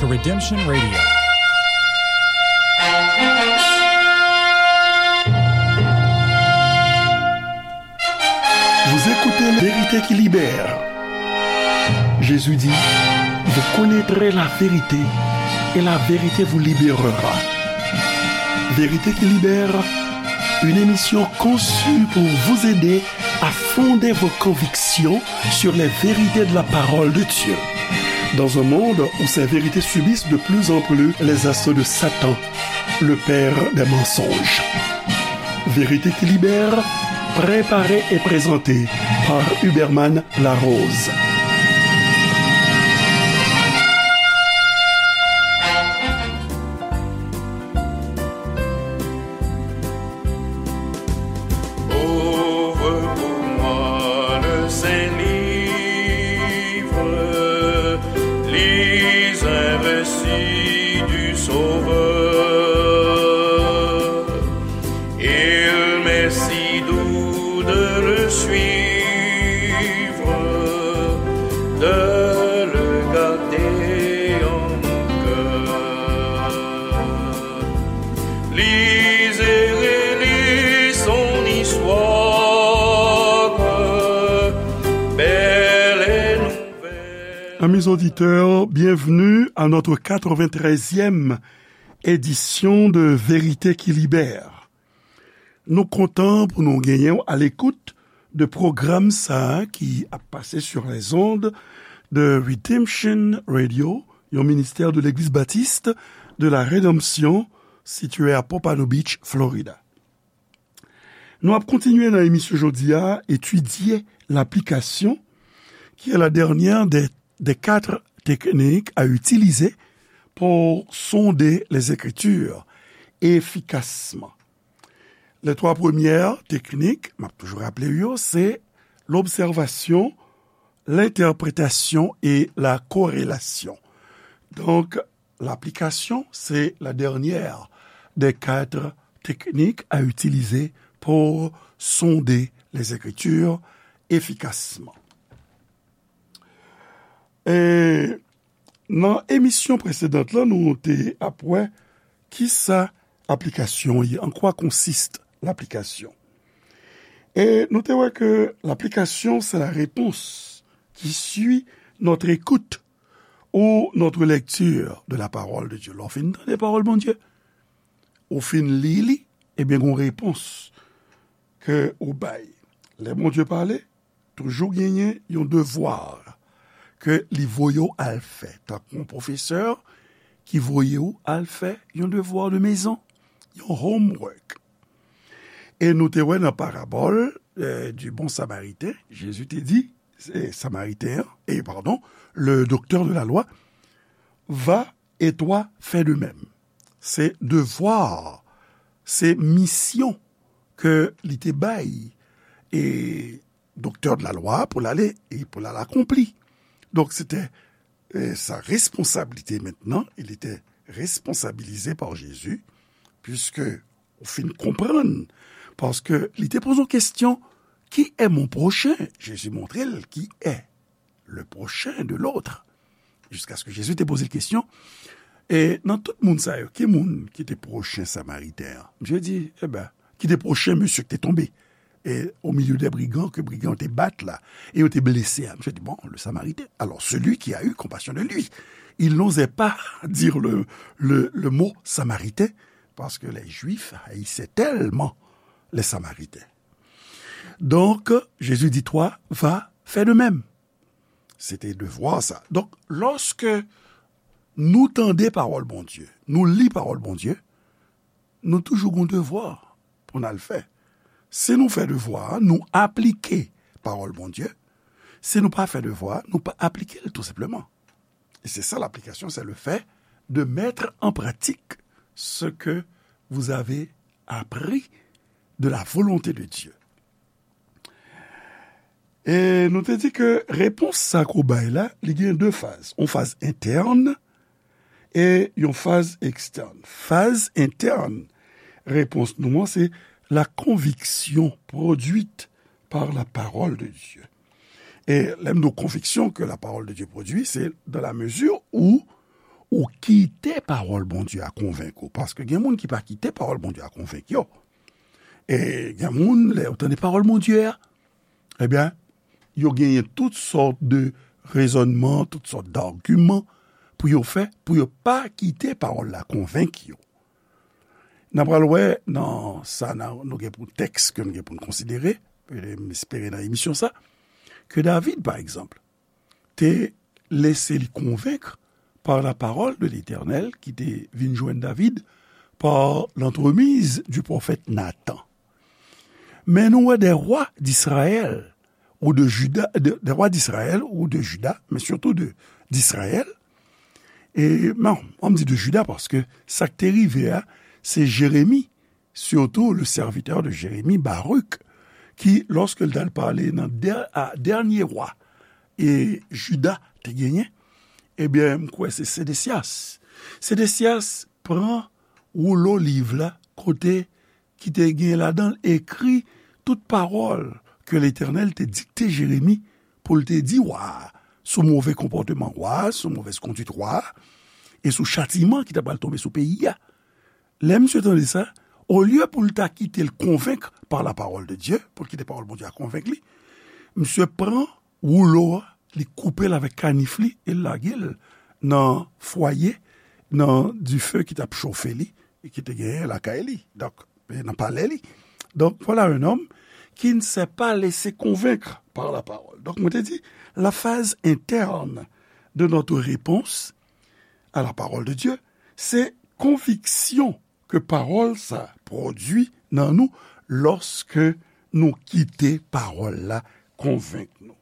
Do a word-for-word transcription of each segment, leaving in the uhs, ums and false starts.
to Redemption Radio. Vous écoutez La Vérité qui libère. Jésus dit, vous connaîtrez la vérité et la vérité vous libérera. Vérité qui libère, une émission conçue pour vous aider à fonder vos convictions sur les vérités de la parole de Dieu. Dans un monde où ces vérités subissent de plus en plus les assauts de Satan, le père des mensonges. Vérité qui libère, préparée et présentée par Huberman Larose. Ouvre pour moi le saint livre, lis un récit du Sauveur. Il m'est si doux de le suivre, de le garder en mon cœur. Lis et relis son histoire, belle et nouvelle. Amis auditeurs, bienvenue à notre quatre-vingt-treizième édition de Vérité qui Libère. Nou kontan pou nou genyen w alekout de pwogram sa a ki ap pase sur les ondes de Redemption Radio, yon ministè de Legliz Batis de la Redanmsyon sitiye a Pompano Beach, Florida. Nou ap kontinye nan emisyon jodi a, etidye laplikasyon, qui est la dernière des, des quatre techniques à utiliser pour sonder les Écritures efficacement. Les trois premières techniques, m ap toujou raple w yo, se l'observation, l'interprétation et la corrélation. Donc, l'application, c'est la dernière des quatre techniques à utiliser pour sonder les Écritures efficacement. E nan emisyon presedan lan, nou te ap wè kisa aplikasyon ye, en quoi consiste l'application. E nou te wè ke l'application, c'est la réponse qui suit notre écoute ou notre lecture de la parole de Dieu. Lè w fin tande pawòl Bondye, ou fin li li, ebyen, gon repons ke ou bay. Lè Bondye pale, toujou genyen yon devwa ke li voye w al fè, tankou yon pwofesè ki voye w al fè yon devwa de mezon, yon homework. E nou te wè nan parabòl, euh, du bon Samaritain, Jezi te di, se Samariten an, e padon, le docteur de la loi, va et toi fais de même. Se devwa, se misyon ke li te bay, e docteur de la loi pou l ale, e pou l al akonpli. Donk, se te, e, sa responsablite mentnan, il était responsabilisé par Jésus, puisque ou fin konprann, paske li te poze yon kesyon, qui est mon prochain? Jezi montre l qui est le prochain de l'autre. Jiskaske Jezi te poze l kesyon, e nan tout moun sa yo, ki moun ki te pwochen Samariten an? Misye di, eben, ki te pwochen mesye ki te tonbe, e au milieu des brigands, ke brigan yo te bat la, e yo te blese a. Misye di, bon, le Samaritain. Alors, celui qui a eu compassion de lui. Il n'osait pas dire le, le, le mot Samaritain, parce que les Juifs haïssaient tellement les Samaritains. Donc, Jésus dit, toi, va, fais de même. Se te devwa sa. Donk, lòske nou tande pawòl Bondye, nou li pawòl Bondye, nou toujou gon devwa pou n al fè. Si nou fè devwa a, nou aplike pawòl Bondye. Si nou pa fè devwa a, nou pa aplike l, tou senpleman. Et c'est ça l'application, c'est le fait de mettre en pratique ce que vous avez appris de la volonté de Dieu. E nou te di ke repons sa ke w bay la, li gen de faz. Yon faz entèn e yon faz ekstèn. Faz entèn repons nou an, se la conviction produite par la parole de Dieu. E lè m di w conviction que la parole de Dieu produit, c'est dans la mesure où ou kite pawòl Bondye a konvenk ou. Paske gen moun ki pa kite pawòl Bondye a konvenk yo. E gen moun, lè yo tande pawòl Bondye a, ebyen, yo genyen tout sòt de rezònman, tout sòt d'agiman pou yo fè, pou yo pa kite pawòl la konvenk yo. N a pral wè nan sa n a, nou gen pou tèks ke nou gen pou n konsidere, e m espere nan emisyon sa, ke David, pa egzanp, te lese li konvenk pa la parole de l'Éternel ki te vin jwenn David par l'entremise du prophète Nathan. Men nou wè des rois d'Israël ou de Juda, de, des rois d'Israël ou de Juda, men sitou de, d'Israël. E, non, an m di de Juda paske sa k te rive a, se Jeremi, surtout le serviteur de Jérémie, Baruch, ki, lòske l t al pale nan dè-, a, dènye wa e Jida te genyen, ebyen, m kwè se Sedesyas. Sedesyas pran woulo liv la, kote ki te gen ladan l ekri tout pawòl ke Letènèl te dikte Jeremi pou l te di wa a, sou move konpòteman wa a, sou movèz kondwit wa a, e sou chatiman ki ta pral tonbe sou peyi a. Lè misye tande sa, olye pou l ta kite l konvenk par la parole de Dieu, pou l kite pawòl Bondye a konvenk li, misye pran woulo a, li koupe l avèk kanif li e l lage l nan fwaye, nan dife ki t ap chofe li, e ki te genyen lakay li, donk, e nan palè li. Donc, voilà un homme qui ne s'est pas laissé convaincre par la parole. Donk, mwen te di, la phase interne de notre réponse à la parole de Dieu, se konviksyon ke pawòl sa pwodui nan nou lòske nou kite pawòl la konvenk nou.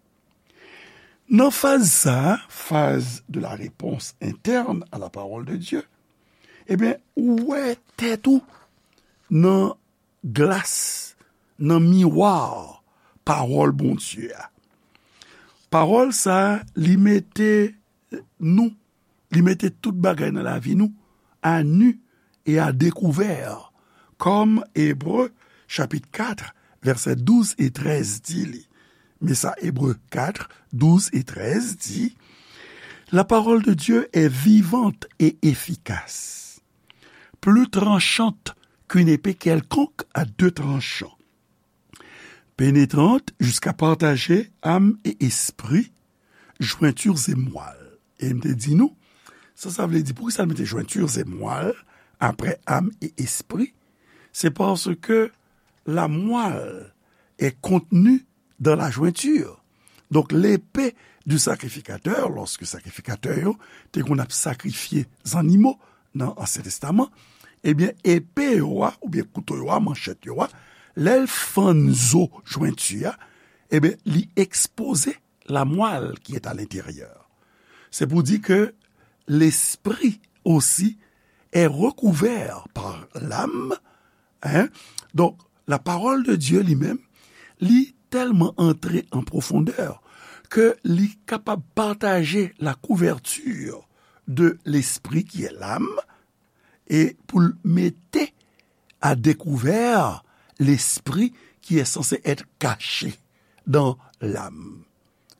Nan faz sa, phase de la réponse interne à la parole de Dieu, ebyen, ou wè tèt ou nan glas, nan miwa pawòl Bondye a. Pawòl sa a, li mete nou, li mete tout bagay nan lavi nou à nu et à découvert, kòm Ebre chapit kat, vèsè douz e trèz di li. Men sa Ebre kat, douz e trèz di, La parole de Dieu est vivante et efficace, plus tranchante qu'une épée quelconque à deux tranchants, pénétrante jusqu'à partager âme et esprit, jointures et moelle. E m te di nou, sa, sa vle di, poukisa l mete jointures et moelle apre âme et esprit? C'est parce que la moelle est contenue dans la jointure. Donc, l'épée du sacrificateur, lòske sakrifikatè yo te konn ap sakrifye zannimo nan Ansyen Testaman, ebyen, epe yo a, oubyen kouto yo a, manchèt yo a, lè l fann zo jwenti a, ebyen, li ekspoze la moelle qui est à l'intérieur. C'est pour dire que l'esprit aussi est recouvert par l'âme, hein. Donc, la parole de Dieu li menm, li tèlman antre an pwofondè ke li kapab pataje la couverture de l'esprit qui est l'âme, e pou l mete à découvert l'esprit qui est censé être caché dans l'âme.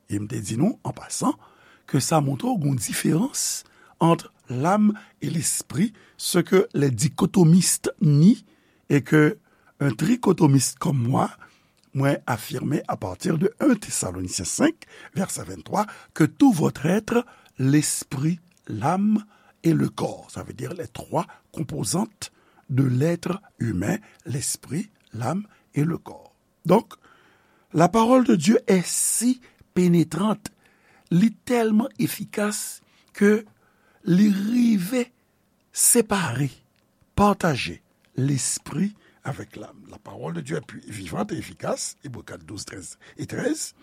E m te di nou, an pasan, ke sa montre w gon diferans ant l'âme et l'esprit, ce que les dichotomistes nient et que un trichotomiste comme moi, mwen afime à partir de un Thessaloniciens cinq, verset vingt-trois, que tout votre être, l'esprit, l'âme et le corps. Ça veut dire les trois composantes de l'être humain, l'esprit, l'âme et le corps. Donc, la parole de Dieu est si pénétrante, li tèlman efikas ke li rive separe, pataje lespri avec l'âme. La parole de Dieu est puis vivante et efficace, Hébreux quatre, douze, treize et treize.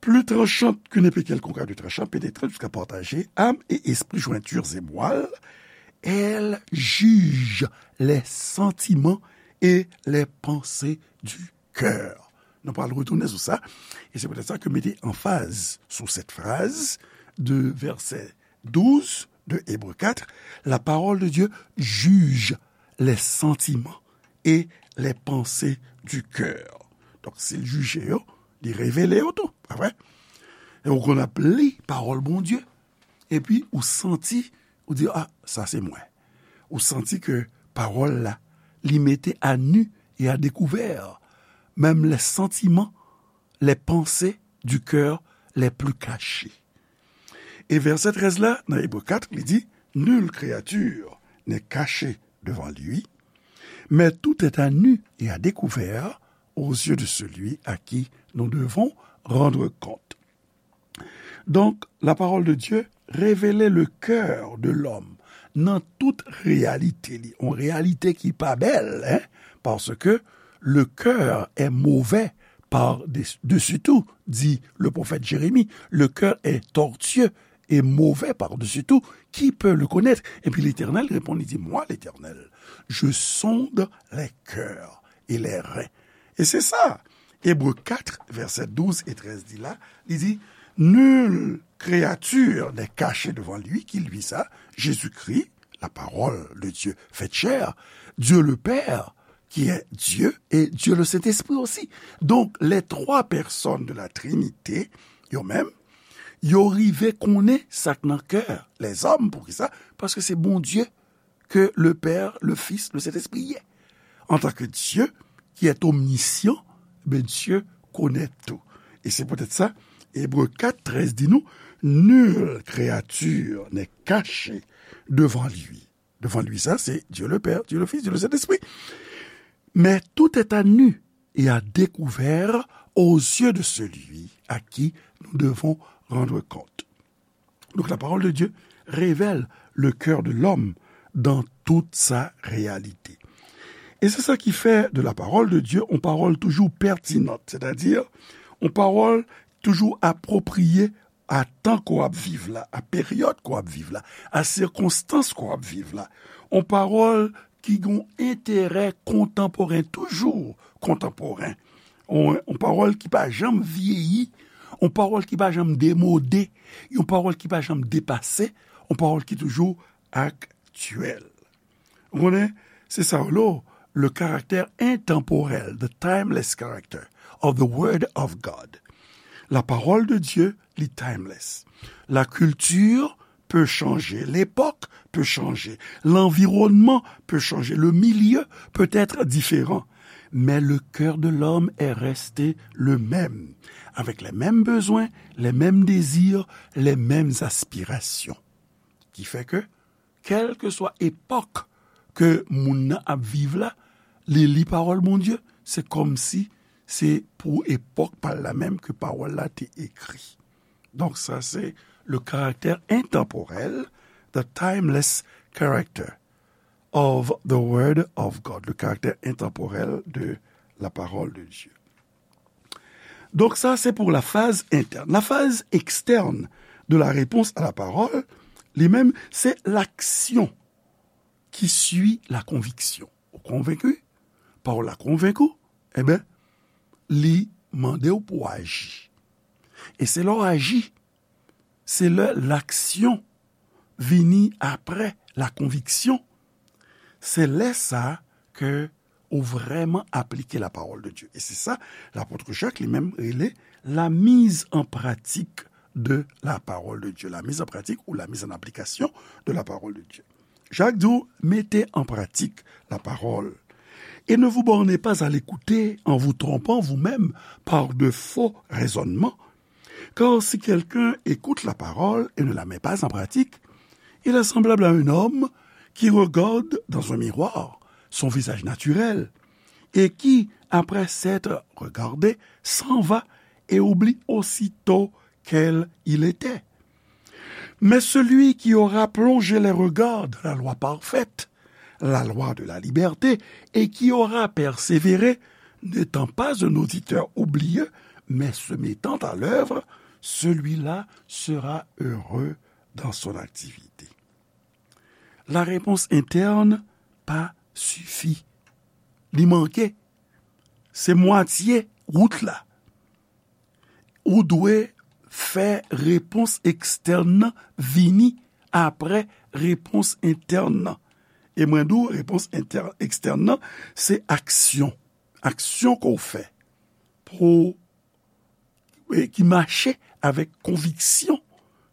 Plus tranchante qu'une épée quelconque à deux tranchants, pénétrante jusqu'à partager âme et esprit, jointures et moelle. Elle juge les sentiments et les pensées du cœur. Nou pral retounen sou sa. E se poutèt sa ke m mete anfaz sou cette phrase de verset douze de Hébreux quatre, la parole de Dieu juge les sentiments et les pensées du cœur. Donk, si l jije yo, li revele yo tou, pa vre? E ou konn ap li pawòl Bondye, epi ou santi Ou di, "Ah, sa se mwen." Ou santi ke pawòl la, li mete à nu et à découvert, menm les sentiments, les pensées du cœur les plus cachés. E vèsè trèz la, nan Ebre kat, li di, "Nulle créature n'est cachée devant lui, mais tout est à nu et à découvert aux yeux de celui à qui nous devons rendre compte." Donk, la parole de Dieu révèle le cœur de l'homme nan tout réalité li, yon réalité ki pa bèl, hein, parce que le cœur est mauvais par-dessus tout, dit le prophète Jérémie, le cœur est tortueux et mauvais par-dessus tout, qui peut le connaître? Epi Letènèl reponn, li di, "Moi, l'Éternel, je sonde les cœurs et les reins." E se sa, Ebre kat, vèsè douz e trèz di la, li di, "Nulle créature n'est cachée devant lui qui lui sa." Jésus-Christ, la parole de Dieu faite chair, Dieu le Père, qui est Dieu, et Dieu le Saint-Esprit aussi. Donc, les trois personnes de la Trinité, yo menm, yo rive konnen sa k nan kè lèzòm. Poukisa? Paske se Bondye ke le Père, le Fils, le Saint-Esprit ye. En tant que Dieu qui est omniscient, ben, Dieu connaît tout. Et c'est peut-être ça, Hébreux quatre treize dit nous, "Nulle créature n'est cachée devant lui." Devant lui, ça, c'est Dieu le Père, Dieu le Fils, Dieu le Saint-Esprit. "Mais tout est à nu et à découvert aux yeux de celui à qui nous devons rendre compte." Donc la parole de Dieu révèle le cœur de l'homme dans toute sa réalité. E se sa ki fè de la parole de Dieu yon pawòl toujou pètinant, sètadi yon pawòl toujou apwopriye a tan ke w ap viv la, a peryòd ke w ap viv la, a sikonstans ke w ap viv la. Yon pawòl ki gen yon enterè kontanporen, toujou kontanporen. Yon, yon pawòl ki pa janm vyeyi, yon pawòl ki pa janm demode, yon pawòl ki pa janm depase, yon pawòl ki toujou aktyèl. Ou konnen, se sa yo rele le caractère intemporel, the timeless character of the Word of God. La parole de Dieu, li timeless. La culture peut changer, l'époque peut changer, l'environnement peut changer, le milieu peut être différent, mais le cœur de l'homme est resté le même, avec les mêmes besoins, les mêmes désirs, les mêmes aspirations. Ki fè ke, kèlkeswa epòk ke moun nan ap viv la, li li pawòl Bondye, se kòmsi se pou epòk pa l la menm ke pawòl la te ekri. Donk, sa se le caractère intemporel, the timeless character of the Word of God, le caractère intemporel de la parole de Dieu. Donk, sa se pou la phase interne. La phase externe de la réponse à la parole, li menm, se l'action qui suit la conviction. Ou konvenki? Pawòl la konvenk ou? Enben, li mande w pou w aji. E se lè w aji, se lè laksyon vini apre la konviksyon, se lè sa ke ou vrèman aplike la parole de Dieu. E se sa, lapot Jak li menm rele la mise en pratique de la parole de Dieu, la mise en pratique ou la mise en application de la parole de Dieu. Jak di w, mettez en pratique la parole. Et ne vous bornez pas à l'écouter en vous trompant vous-même par de faux raisonnements. Car si quelqu'un écoute la parole et ne la met pas en pratique, il est semblable à un homme qui regarde dans un miroir son visage naturel et qui, après s'être regardé, s'en va et oublie aussitôt quel il était. Mais celui qui aura plongé les regards dans la loi parfaite, la loi de la liberté, et qui aura persévéré, n'étant pas un auditeur oublieux, mais se mettant à l'œuvre, celui-là sera heureux dans son activité. La réponse interne pa sifi. Li manke. Se mwatye wout la. Ou dwe fè repons ekstèn nan vini apre repons entèn nan. E mwen di w, repons entè-, ekstèn nan, se aksyon. Aksyon ke w fè pou, e ki mache avèk konviksyon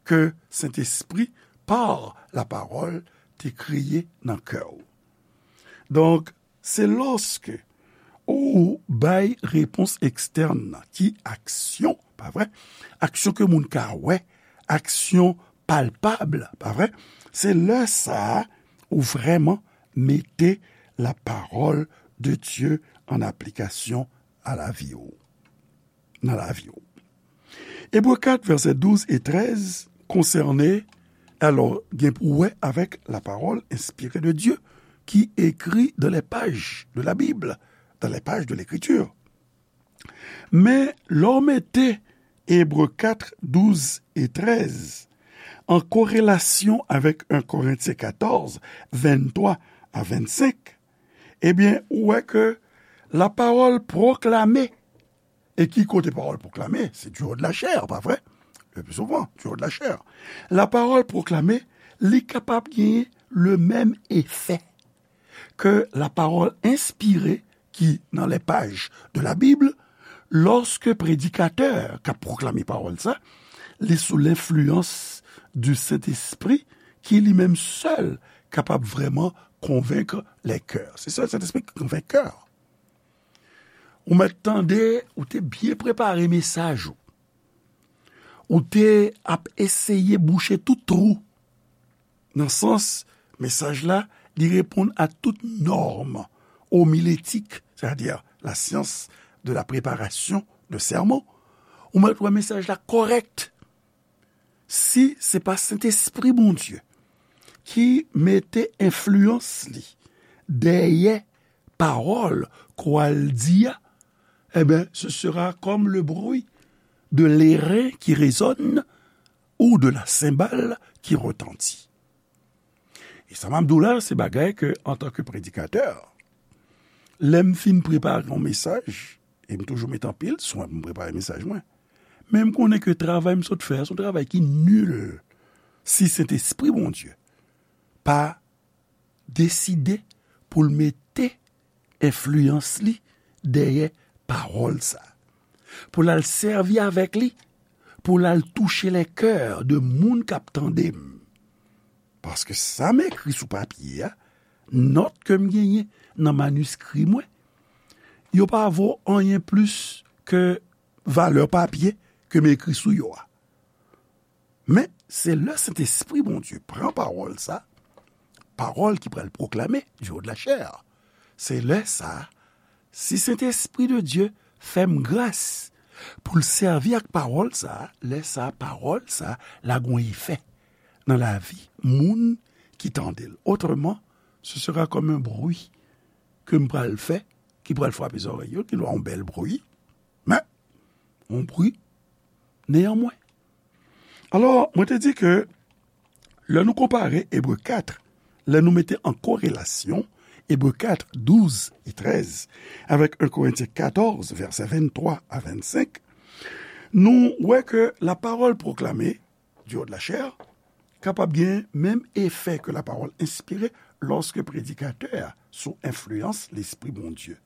ke Sentespri par la parole te kreye nan kè w. Donk, se lòske ou bay repons ekstèn nan, ki aksyon, pa vre? Aksyon ke moun ka wè, aksyon palpab, pa vre? Se lè sa a ou vrèman mete la parole de Dieu en application a lavi w, nan lavi w. Ebre kat, vèsè douz e trèz konsène, alò, gen pou wè avèk la parole inspirée de Dieu qui écrit dans les pages de la Bible, dans les pages de l'Écriture. Men, lè w mete Ebre kat, douz e trèz an korelasyon avèk en Korentyen katòz, venntwa a vennsenk, ebyen, ou wè ke la parole proclamée, e ki kote pawòl pwoklame? Se du haut de la chair, pa vre? Le plus souvent, du haut de la chair. La parole proclamée, li kapab genyen le menm efè ke la parole inspirée ki nan les pages de la Bible, lòske predikatè k ap pwoklame pawòl sa, li sou lenfliyans du Sentespri ki li menm sèl kapab vrèman konvenk lè kè. Se sèl Sentespri ki konvenk kè. Ou mèt tande, ou te byen prepare mesaj ou. Ou te ap eseye bouche tout twou. Nan sans, mesaj la, li reponn a tout nòm omiletik, c'est-à-dire la science de la préparation de sermon. Ou mèt wè mesaj la kòrèk. Si se pa Sentespri Bondye ki mete enfliyans li dèyè pawòl ke w al di a, eh ben, ce sera comme le bruit de l'airain qui résonne ou de la cymbale qui retentit. E sa m ap di w la, se bagay ke, antanke predikatè, lè m fin prepare yon mesaj, e m toujou mete anpil swen pou m prepare mesaj mwen. Men m konnen ke travay m sot fè a, se yon travay ki nil si Sentespri Bondye pa deside pou l mete enfliyans li dèyè pawòl sa. Pou l al sèvi avèk li, pou l al touche lè kè de moun k ap tande m. Paske sa m ekri sou papye a, nòt ke m genyen nan maniskri mwen, yo pa vo anyen plis ke valè papye ke m ekri sou yo a. Men, se lè Sentespri Bondye pran pawòl sa, pawòl ki pral pwoklame du haut de la chair. Se lè sa, si Sentespri de Dye fè m gras pou l sèvi ak pawòl sa, lè sa, pawòl sa, la gon efè nan lavi moun ki tande l. Otreman, ce sera comme un bruit ke m pral fè, ki pral frape zòrèy yo, ki dwa yon bèl bri, men, yon bri neyanmwen. Alò, mwen te di ke lè nou konpare Ebre kat, lè nou mete an korelasyon Ebre kat, douz e trèz avèk en Korentyen katòz, vèsè venntwa a vennsenk, nou wè ke la parole proclamée du haut de la chair kapab gen menm efè ke la parole inspirée lòske predikatè a sou enfliyans Lespri Bondye.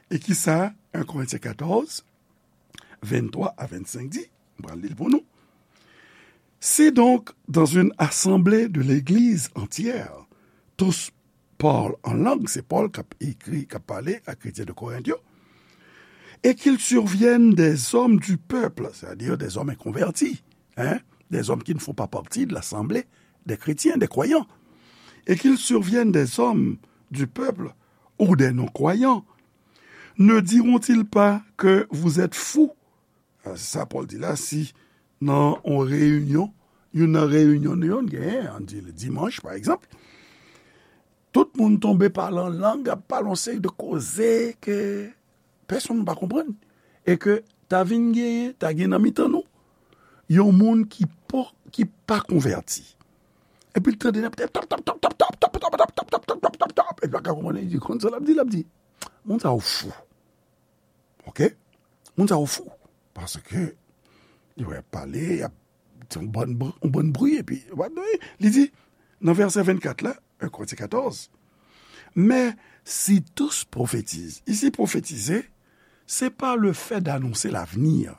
E ki sa en Korentyen katòz, venntwa a vennsenk di? M pral li l pou nou. Si donc, dans une assemblée de l'Église entière, tous parlent en langue, se Pòl k ap ekri, k ap pale a kretyen de Korent yo, et qu'il survienne des hommes du peuple, c'est-à-dire des hommes inconvertis, hein, des hommes qui ne font pas partie de l'assemblée des chrétiens, des croyants, et qu'il survienne des hommes du peuple ou des non-croyants, ne diront-ils pas que vous êtes fous? Ah, se sa Pòl di la, si nan yon reyinyon, youn nan reyinyon nou yo, n genyen, ann di dimanch, pa egzanp, tout moun tonbe pale an lang, ap pale yon seri de koze ke pèsonn pa konprann, e ke ta vin genyen, ta gen nan mitan nou, yon moun ki pa, ki pa konvèti. Epi l tande n ap tap, tap, tap, epi l pa ka konprann, li di, konn sa l ap di, l ap di, moun sa yo fou. Oke? Moun sa yo fou. Paske, li wè pale, y ap, se yon bann br-, yon bann bri, epi, li di, nan vèsè vennkat la, en Korentyen katòz, mais si tous prophétisent. Ici, prophétiser, c'est pas le fait d'annoncer l'avenir.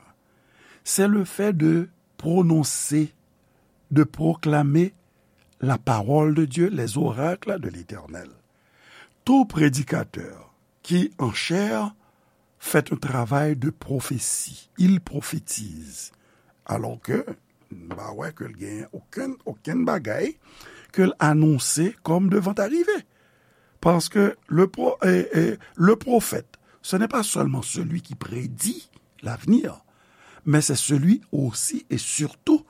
C'est le fait de prononcer, de proclamer la parole de Dieu, les oracles de l'Éternel. Tout prédicateur qui en chair fait un travail de prophétie, il prophétise. Alors que, m pa wè ke l gen okenn, okenn bagay ke l anonse comme devant arriver. Parce que le pro-, et, et le prophète, ce n'est pas seulement celui qui prédit l'avenir, mais c'est celui aussi et surtout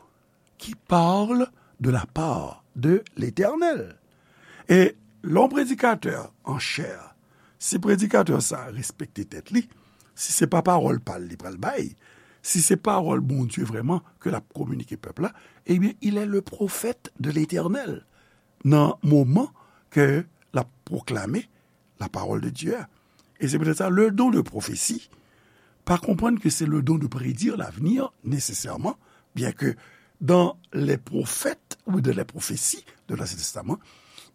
qui parle de la part de l'Éternel. E lè yon predikatè an chè, si predikatè sa a respekte tèt li, si se pa pawòl pa l li pral bay, si se pawòl Bondye vrèman ke l ap kominike pèp la, ebyen, il est le prophète de l'Éternel nan moman ke l ap pwoklame la parole de Dieu a. Et c'est peut-être ça, le don de prophétie, pas comprendre que c'est le don de prédire l'avenir nécessairement, bien que dans les prophètes ou dans les prophéties de l'Ancien Testament,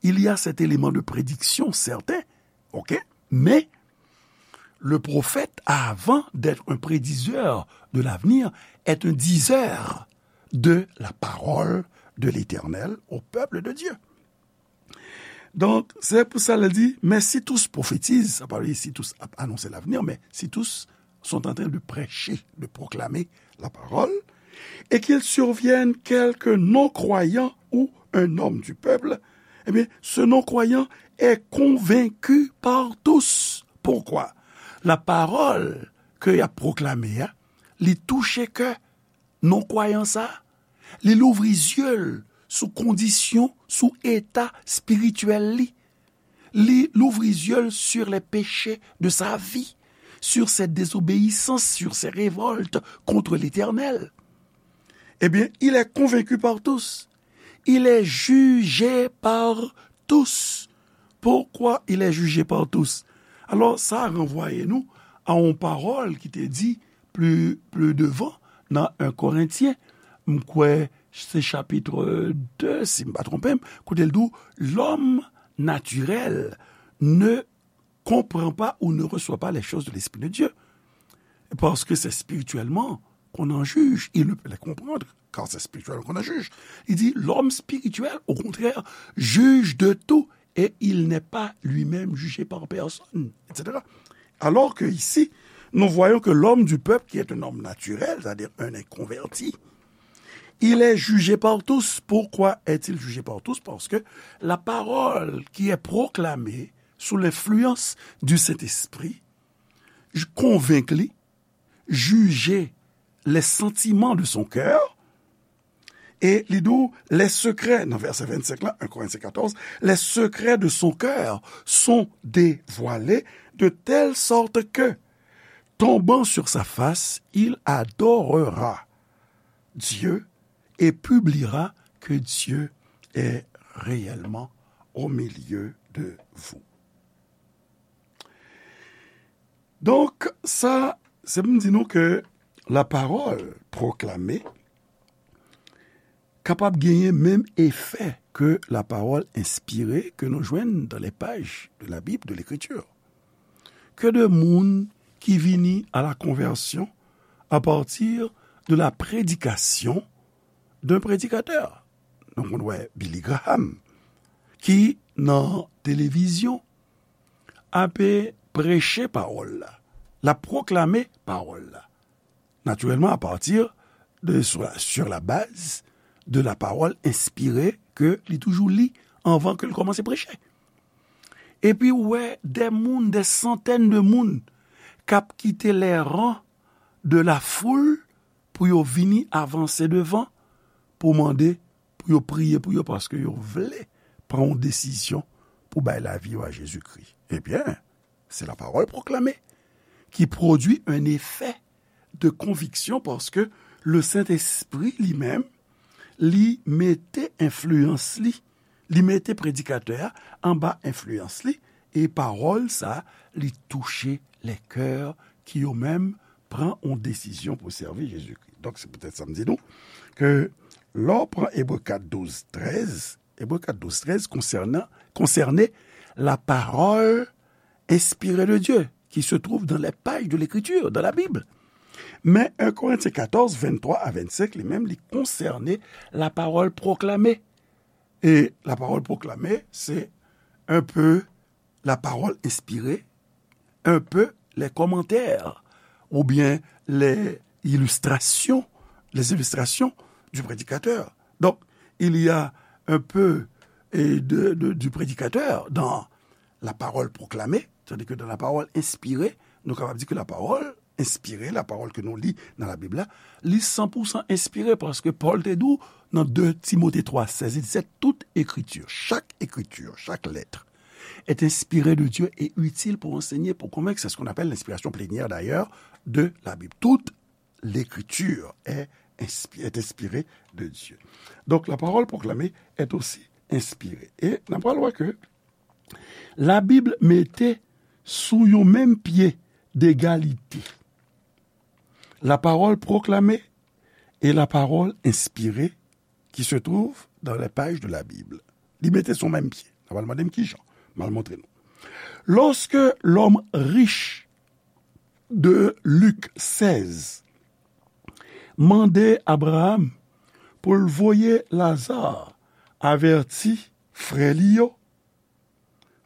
il y a cet élément de prédiction certain, ok? Mais le prophète, avant d'être un prédiseur de l'avenir, est un diseur de la parole de l'Éternel au peuple de Dieu. Donk, se pou sa l di, mais si tous prophétisent, sa pa vle di si tous ap anonse l'avenir, mais si tous sont en train de prêcher, de proclamer la parole, et qu'il survienne quelque non-croyant ou un homme du peuple, eh bien, ce non-croyant est convaincu par tous. Pourquoi? La parole ke y ap pwoklame a, li touche kè non-kwayan sa, li louvri zye l sou kondisyon, sou eta espirityèl li. Li louvri zye l sur les péchés de sa vie, sur ses désobéissances, sur ses révoltes contre l'Éternel. Eh bien, il est convaincu par tous. Il est jugé par tous. Pourquoi il est jugé par tous? Alò, sa ranvwaye nou a yon pawòl ki te di pli, pli devan nan en Korentyen, m kwè se chapit de, si m pa twonpe m, kote l di w, l'homme naturel ne comprend pas ou ne reçoit pas les choses de l'Esprit de Dieu. Parce que c'est spirituellement qu'on en juge. Il ne peut les comprendre, car c'est spirituellement qu'on en juge. Il dit, l'homme spirituel, au contraire, juge de tout et il n'est pas lui-même jugé par personne, et cetera. Alors que ici, nous voyons que l'homme du peuple, qui est un homme naturel, c'est-à-dire un inconverti, il est jugé par tous. Pourquoi est-il jugé par tous? Parce que la parole qui est proclamée sous l'influence du Saint-Esprit, j-, konvenk li, jije les sentiments de son cœur, e li di w, les secrets, nan vèsè vennsenk la, en Korentyen katòz, les secrets de son cœur sont dévoilés de telle sorte que, tombant sur sa face, il adorera Dieu et publiera que Dieu est réellement au milieu de vous. Donk, sa, se pou m di nou ke la parole proclamée kapab genyen menm efè ke la parole inspirée ke nou jwenn dans les pages de la Bible, de l'Écriture. Que de moun ki vini à la conversion à partir de la prédication d'un prédicateur. Nou konn wè Billy Graham, ki nan televizyon ape preche pawòl la, l ap pwoklame pawòl la. Naturellement, à partir de, sur la, sur la base de la parole inspirée ke li toujou li anvan ke l kòmanse preche. Epi ou wè des moun, des centaines de moun k ap kite les rangs de la foule pou yo vini avanse devan, pou mande, pou yo priye pou yo, paske yo vle pran yon desizyon pou bay lavi yo a Jezikri. Ebyen, c'est la parole proclamée qui produit un effet de conviction, paske le Saint-Esprit li menm, li mete enfliyans li, li mete predikatè a anba enfliyans li, e pawòl sa, li touche les cœurs ki yo menm pran yon desizyon pou sèvi Jezikri. Donk, se poutèt sa m di nou ke lè w pran Ebre kat, douz, trèz, Ebre kat, douz, trèz konsènan, konsène la parole inspirée de Dieu, qui se trouve dans les pages de l'Écriture, dans la Bible. Men en Korentyen katòz, venntwa a vennsenk, li menm, li konsène la parole proclamée. Et la parole proclamée, c'est un peu la parole inspirée, un peu les commentaires ou bien les illustrations, les illustrations du prédicateur. Donc, il y a un peu, eh, de, de, du prédicateur dans la parole proclamée, tandis que dans la parole inspirée, nou kapab di ke la parole inspirée, la parole ke nou li nan Labib la, li san pou san enspire, paske Pòl te di w nan de Timote twa sèz, li di, c'est toute écriture, chaque écriture, chaque lettre est inspirée de Dieu et utile pour enseigner, pour convaincre. C'est ce qu'on appelle l'inspiration plénière d'ailleurs de la Bible. Toute l'écriture est, inspi- est inspirée de Dieu. Donc la parole proclamée est aussi inspirée. E n ap pral wè ke Labib mete sou yon menm pye degalite la parole proclamée et la parole inspirée qui se trouve dans les pages de la Bible. Li mete sou menm pye. N ap al mande m kijan. M al montre nou. Lorsque l'homme riche de Luc seize mande Abraham pou l voye Lazare avèti frè li yo,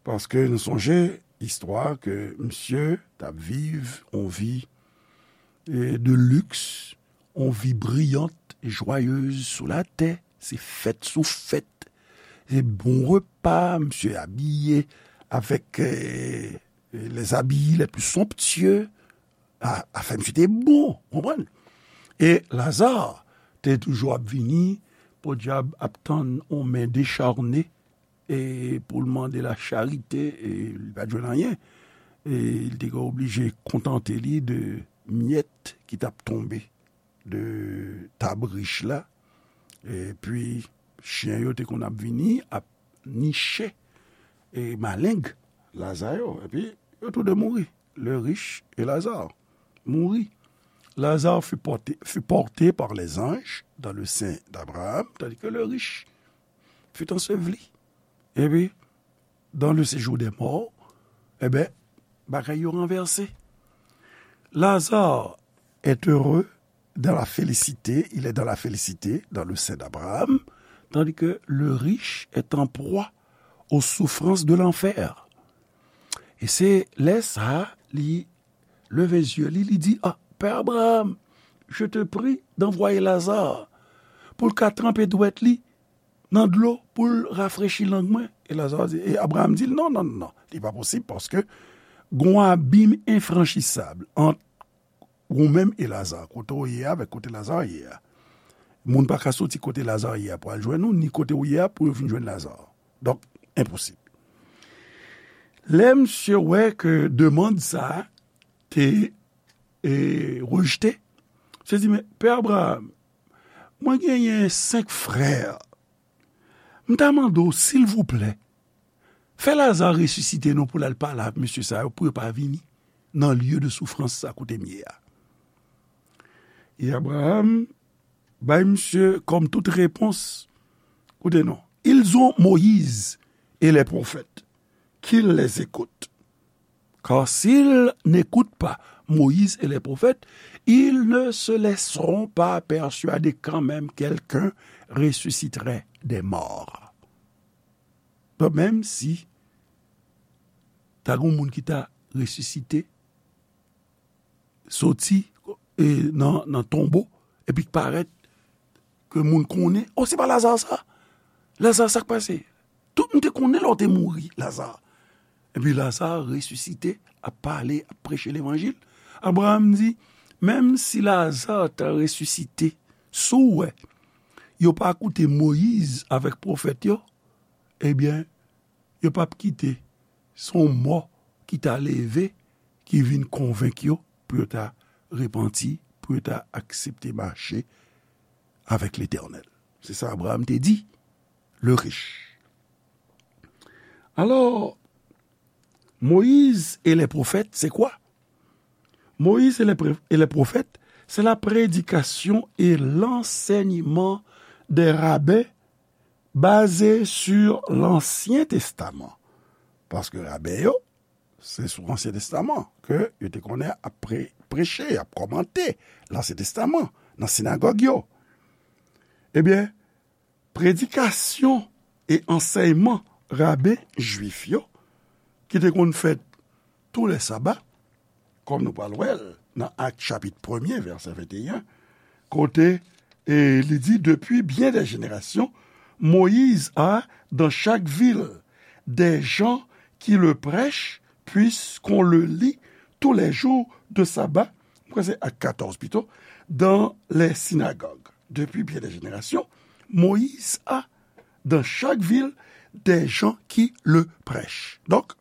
paske nou sonje istwa ke misye t ap viv yon vi, eh, de luxe, yon vi briyant, joyeuse sou latè, se fèt sou fèt, se bon repa, misye abiye avèk, eh, les habits les plus somptueux, a, afè misye te bon, konprann? E Lazare te toujou ap vini, podyab ap tann yon men decharne, e pou l mande la charite, e li pa t jwenn anyen. E li te ka oblije kontante li de myèt ki t ap tonbe de tab rich la. Epi, chen yo te konn ap vini, ap niche, e maleng Laza yo. Epi, yo tou de mouri. Le riche et Lazare mouri. Lazare fut porté, fut porté par les anges dans le sein d'Abraham, tandis que le riche fut enseveli. Epi, dans le séjour des morts, ebyen, bagay yo ranvèse. Lazare est heureux dans la félicité, il est dans la félicité, dans le sein d'Abraham, tandis que le riche est en proie aux souffrances de l'enfer. E se lè sa, li leve zye li, li di, ah, Père Abraham, je te prie d'envoyer Lazare pou l ka tranpe dwèt li nan dlo pou l rafrechi lang mwen. E Lazare di, e Abraham di l, non, non, non, non, li pa posib paske gon abim enfranchisab ant ou menm e Laza, kote w ye a avèk kote Laza ye a. Moun pa ka soti kote Laza ye a pou al jwenn ou, ni kote w ye a pou yo vin jwenn Laza. Donk, enposib. Lè misye wè ke demann sa a te, e, rejte, misye di, men, Pè Abraham, mwen genyen senk frè. M ta mande w, silvouplè, fè Laza resisite non pou l al pale ak mesye sa yo, pou yo pa vini nan lye de soufrans sa kote m ye a. E Abraham bay misye kòm tout repons, koute non, ils ont Moïse et les prophètes, qu'ils les écoutent. Car s'ils n'écoutent pas Moïse et les prophètes, ils ne se laisseront pas persuader quand même quelqu'un ressusciterait des morts. Donk, menm si ta gen moun ki ta resisite, soti, e, nan, nan tonbo, epi k parèt, ke moun konnen, o, se pa Laza sa? Laza, sa k pase? Tout moun te konnen lè w te mouri, Laza. Epi Laza resisite, ap pale, ap preche levanjil. Abraham di, menm si Laza ta resisite, si w wè yo pa koute Moyiz avèk pwofèt yo, ebyen, yo p ap kite se yon mò ki ta leve, ki vin konvenk yo pou yo ta repanti, pou yo ta aksepte mache avèk Letènèl. Se sa Abraham te di, le riche. Alors, Moïse et les prophètes, c'est quoi? Moïse et les pré-, et les prophètes, c'est la prédication et l'enseignement des rabbins basé sur l'Ancien Testament. Paske raben yo, se sou Ansyen Testaman ke yo te konnen ap pre-, preche, ap kòmante Lansyen Testaman nan sinagòg yo. Ebyen, predikasyon e ansèyman raben jwif yo, ki te konn fèt tou lè saba, kòm nou pral wè l nan Ak chapit premye, vèsè venteyen, kote, e, li di, Depuis bien des générations, Moïse a, dans chaque ville, des gens qui le prêchent, puisqu'on le lit tous les jours de sabbat. Mwen kwè se Ak katòz pito, dans les synagogues. Depuis bien des générations, Moïse a, dans chaque ville, des gens qui le prêchent. Donk,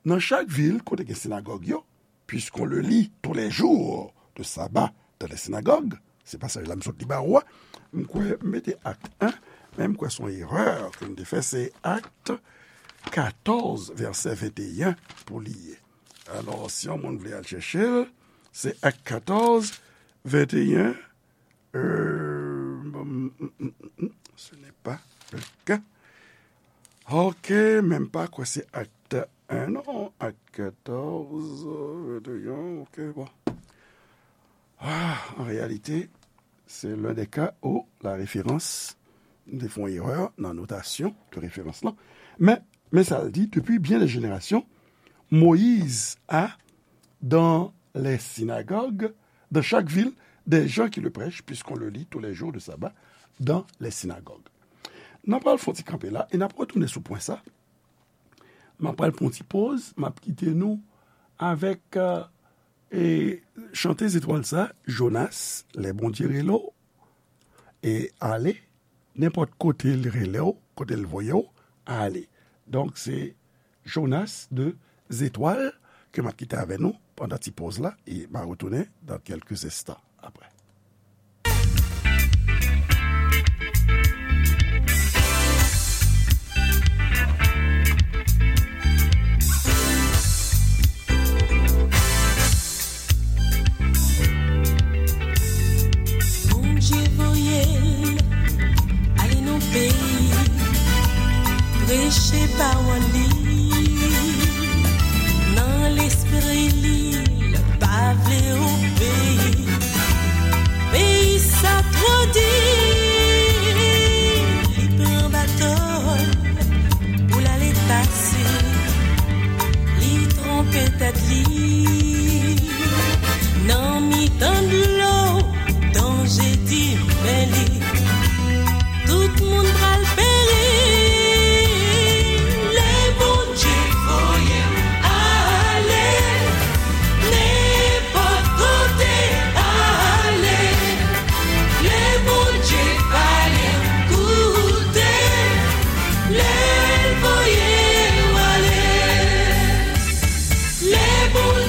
nan chak vil kote gen sinagòg yo, puisqu'on le lit tous les jours de sabbat dans les synagogues, se pasaj la m sot li ba ou a, m kwè m mete Ak en, men m kwè se yon erè ke m te fè, se Ak katòz, vèsè venteyen pou li ye. Alò, si yon moun vle al chèche l, se Ak katòz, venteyen, euh, mm, mm, mm, mm, ce n'est pas le cas. Ok, menm pa kwè se Ak en, non, Ak katòz, venteyen, ok, bon. Ah, an reyalite, se l'un des cas où la référence, m te fè yon erè nan notasyon de referans lan. Men, men sa l di, Depuis bien des générations, Moïse a, dans les synagogues, dans chaque ville, des gens qui le prêchent, puisqu'on le lit tous les jours de sabbat dans les synagogues. N ap pral fè yon ti kanpe la, e n ap retounen sou pwen sa. M ap pral pran yon ti poz, m ap kite nou avèk, euh, e chante zetwal sa, Jonas, Lè Bondye rele w, e ale, nenpòt kote l rele w, kote l voye w, ale. Donk, se Jonas de Zetwal ke m ap kite avè nou pandan ti poz la, e m a retounen dans quelques instants après. Bondye voye l ale nan peyi, preche pawòl li. Nan lespri li, l pa vle obeyi. Peyi sa twò di, li pran bato l pou l ale pase. Li twonpe tèt li. Nan mitan dlo, danje di men li. Tout moun pral peri. Lè Bondye voye m ale, nenpòt kote ale. Lè Bondye pale, koute. Lè l voye w ale. Lè Bondye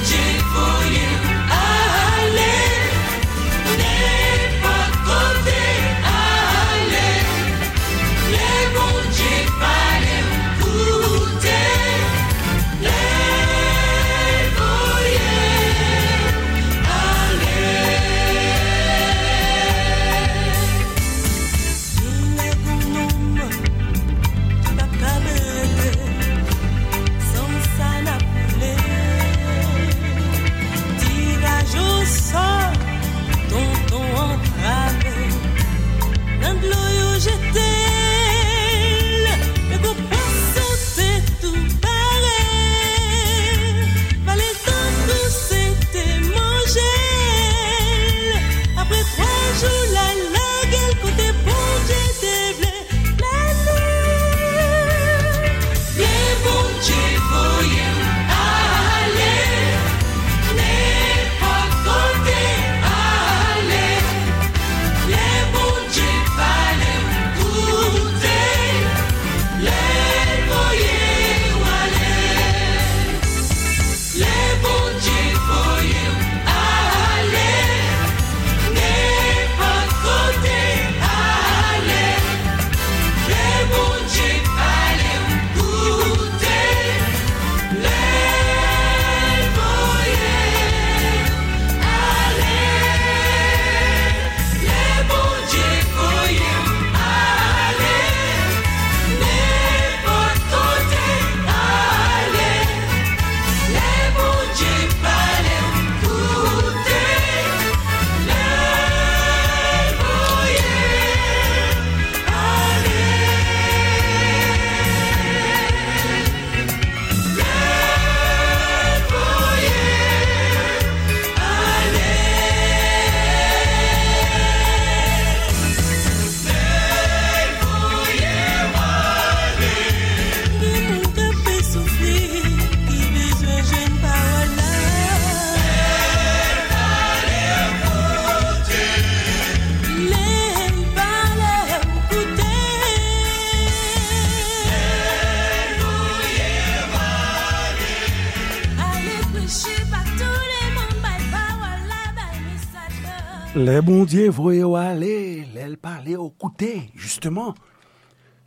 Lè Bondye voye w ale, lè l pale w, koute, jisteman.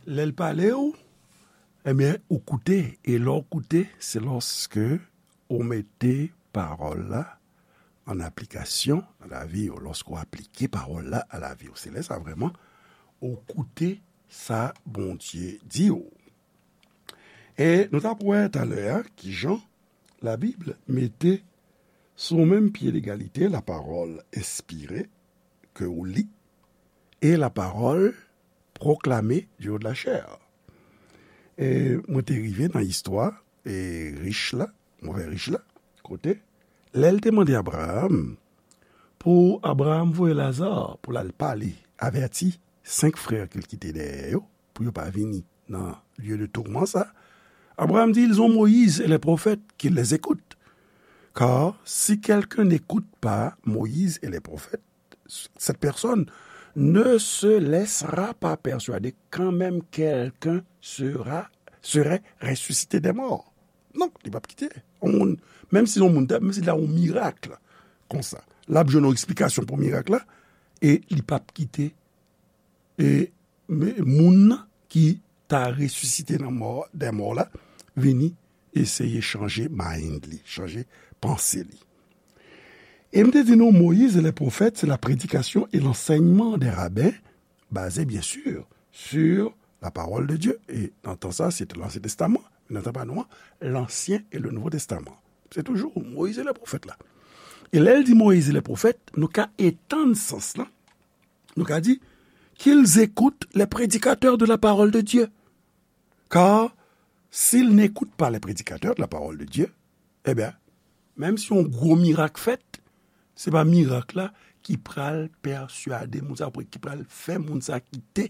Lè l pale w, ebyen, ou koute. E lè w koute, se lòske ou mete pawòl la an aplikasyon nan lavi w, lòske w aplike pawòl la a lavi w. Se lè sa vrèman ou koute sa Bondye di w. E nou t ap wè talè a kijan Labib mete sou menm pye legalite lapawòl enspire ke w li e lapawòl pwoklame du haut de la chair. E mwen te rive nan istwa e rich la, move rich la, kote lè l te mande Abraram pou Abraram voye Laza pou l al pale, avèti senk frè ke l kite dèyè yo, pou yo pa vini nan lye de tourman sa. Abraram di, ils ont Moïse et les prophètes, qu'ils les écoutent. Car si quelqu'un n'écoute pas Moïse et les prophètes, cette personne ne se laissera pas persuader quand même quelqu'un sera, serait ressuscité des morts. Non, li p ap kite yon moun, menm si yon moun, menm si la yon mirak konsa, l ap jwenn yon eksplikasyon pou mirak la, e li p ap kite e, men, moun nan ki ta resisite nan mò, dè mò la, vini eseye chanje mind li, chanje panse li. E m te di nou, Moïse et les prophètes, c'est la prédication et l'enseignement des rabbins, basé bien sûr sur la parole de Dieu. E nan tan sa, se te Lansyen Testaman. Nan tan pa nou an, l'Ancien et le Nouveau Testament. Se toujou Moïse et les prophètes la. E lè l di Moïse et les prophètes, nou ka etann sans lan. Nou ka di, qu'ils écoutent les prédicateurs de la parole de Dieu. Car s'ils n'écoutent pas les prédicateurs de la parole de Dieu, ebyen, menm si yon gwo mirak fèt, se pa mirak la ki pral pèswade moun sa, ki pral fè moun sa kite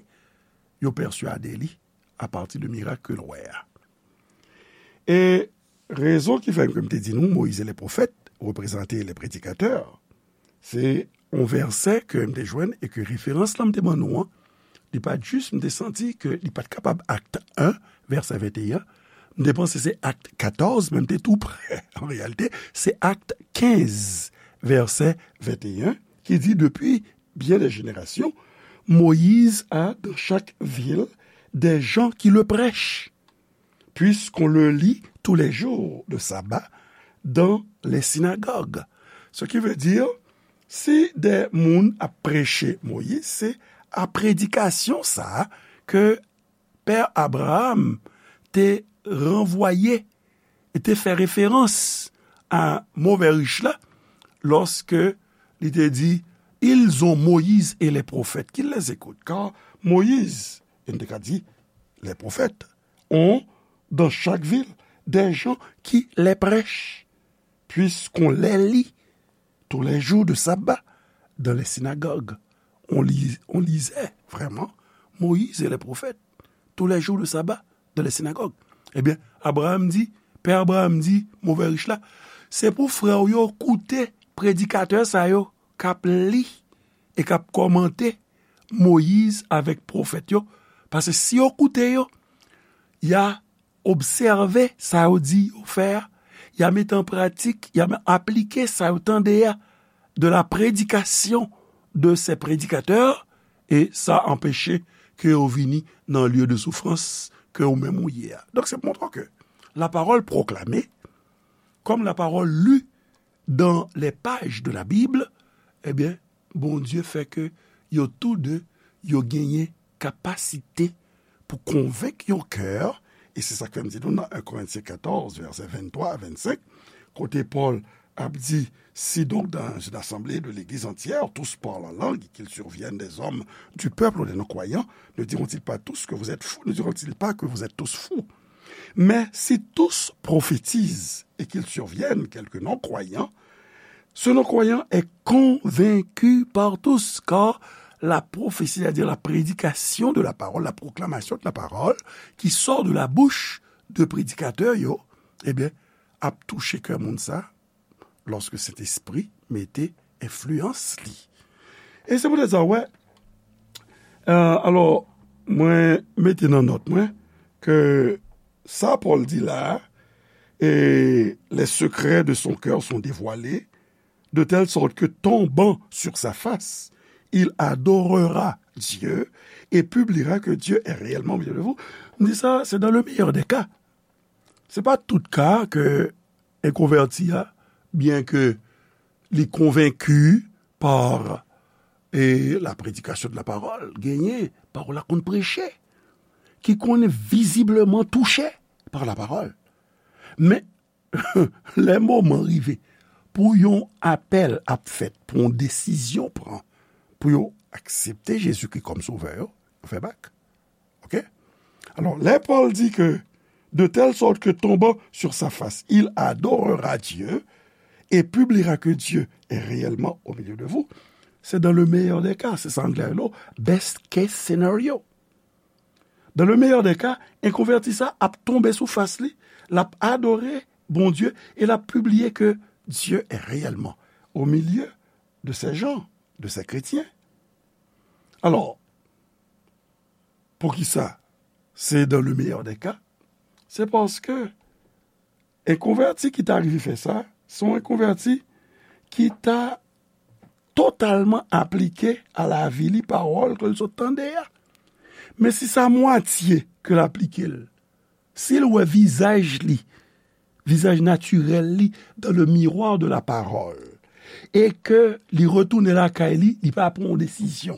yo pèswade li apati de mirak ke l wè a. E rezon ki fè ke m te di nou, Moïse et les prophètes reprezante les prédicateurs, se yon vèsè ke m te jwenn e ke referans lan m te ban nou an, li pa t jis, m te santi ke li pa t kapab Akt en, vèsè venteyen. M te panse se Akt katòz, men m te tou prè. An reyalite, se Akt kenz, vèsè venteyen, ki di, depuis bien des générations, Moïse a dans chaque ville des gens qui le prêchent, puisqu'on le lit tous les jours de sabbat dans les synagogues. Ce qui veut dire, si de moun ap preche Moïse, se a predikasyon sa a ke Pè Abraram te ranvwaye e te fè referans a move rich la, lòske li te di, ils ont Moïse et les prophètes, qu'ils les écoutent. Car Moïse, e n te ka di, les prophètes, ont dans chaque ville des gens qui les prêchent, puisqu'on les lit tous les jours de sabbat dans les synagogues. On lit, on lisait vraiment Moïse et les prophètes tous les jours de sabbat dans les synagogues. Ebyen, Abraram di, Pè Abraram di, move rich la, se pou frè w yo koute predikatè sa yo k ap li e k ap kòmante Moyiz avèk pwofèt yo, paske si yo koute yo, y a obsève sa yo di yo fè a, y a mete an pratik, y a aplike sa yo tande a, de la prédication de ces prédicateurs, e sa anpeche ke yo vini nan lieu de souffrance ke ou menm ou ye a. Donk, se pou montre ke la parole proclamée, comme la parole lue dans les pages de la Bible, ebyen, Bondye fè ke yo tou de, yo genyen kapasite pou konvenk yon kè, e se sa k fè m di nou nan en Korentyen katòz, vèsè venntwa a vennsenk, kote Pòl ap di, si donc dans une assemblée de l'église entière, tous parlent en langue, qu'il survienne des hommes du peuple ou des non-croyants, ne diront-ils pas tous que vous êtes fous, ne diront-ils pas que vous êtes tous fous? Mais si tous prophétisent et qu'il survienne quelques non-croyants, ce non-croyant est convaincu par tous, car la prophétie, c'est-à-dire la prédication de la parole, la proclamation de la parole, qui sort de la bouche de prédicateurs, yo, ebyen, ap touche kè moun sa, lòske Sentespri mete enfliyans li. E se poutèt sa, wè, euh, alò, mwen mete nan nòt mwen ke sa Pòl di la, e les secrets de son cœur sont dévoilés, de telle sorte que tombant sur sa face, il adorera Dieu et publiera que Dieu est réellement au milieu de vous. M di sa, c'est dans le meilleur des cas. Se pa tout ka ke en konvèti a, byen ke li konvenki pa e la predikasyon de la pawòl, genyen pawòl la konn preche, ki konn vizibleman touche pa la pawòl. Men, lè moman rive pou yon apèl ap fèt, pou yon desizyon pran, pou yo aksepte Jezikri kòm Sovè yo, yo fè bak. Ok? Alò, lè Pòl di ke, de telle sorte que tombant sur sa face, il adorera Dieu et publiera que Dieu est réellement au milieu de vous, c'est dans le meilleur des cas, se sa anglè yo, best case scenario. Dans le meilleur des cas, en konvèti sa ap tonbe sou fas li, l ap adore Bondye e l ap pibliye ke Dieu est réellement au milieu de ces gens, de ces chrétiens. Alò, poukisa se dans le meilleur des cas? Se paske en konvèti ki ta rive fè sa, se yon konvèti ki ta totalman aplike a lavi li pawòl ke l sot tande a. Men si se a mwatye ke l aplike l, si l wè vizaj li, vizaj natirèl li, dans le miroir de la parole, e ke li retounen lakay li, li pa pran yon desizyon,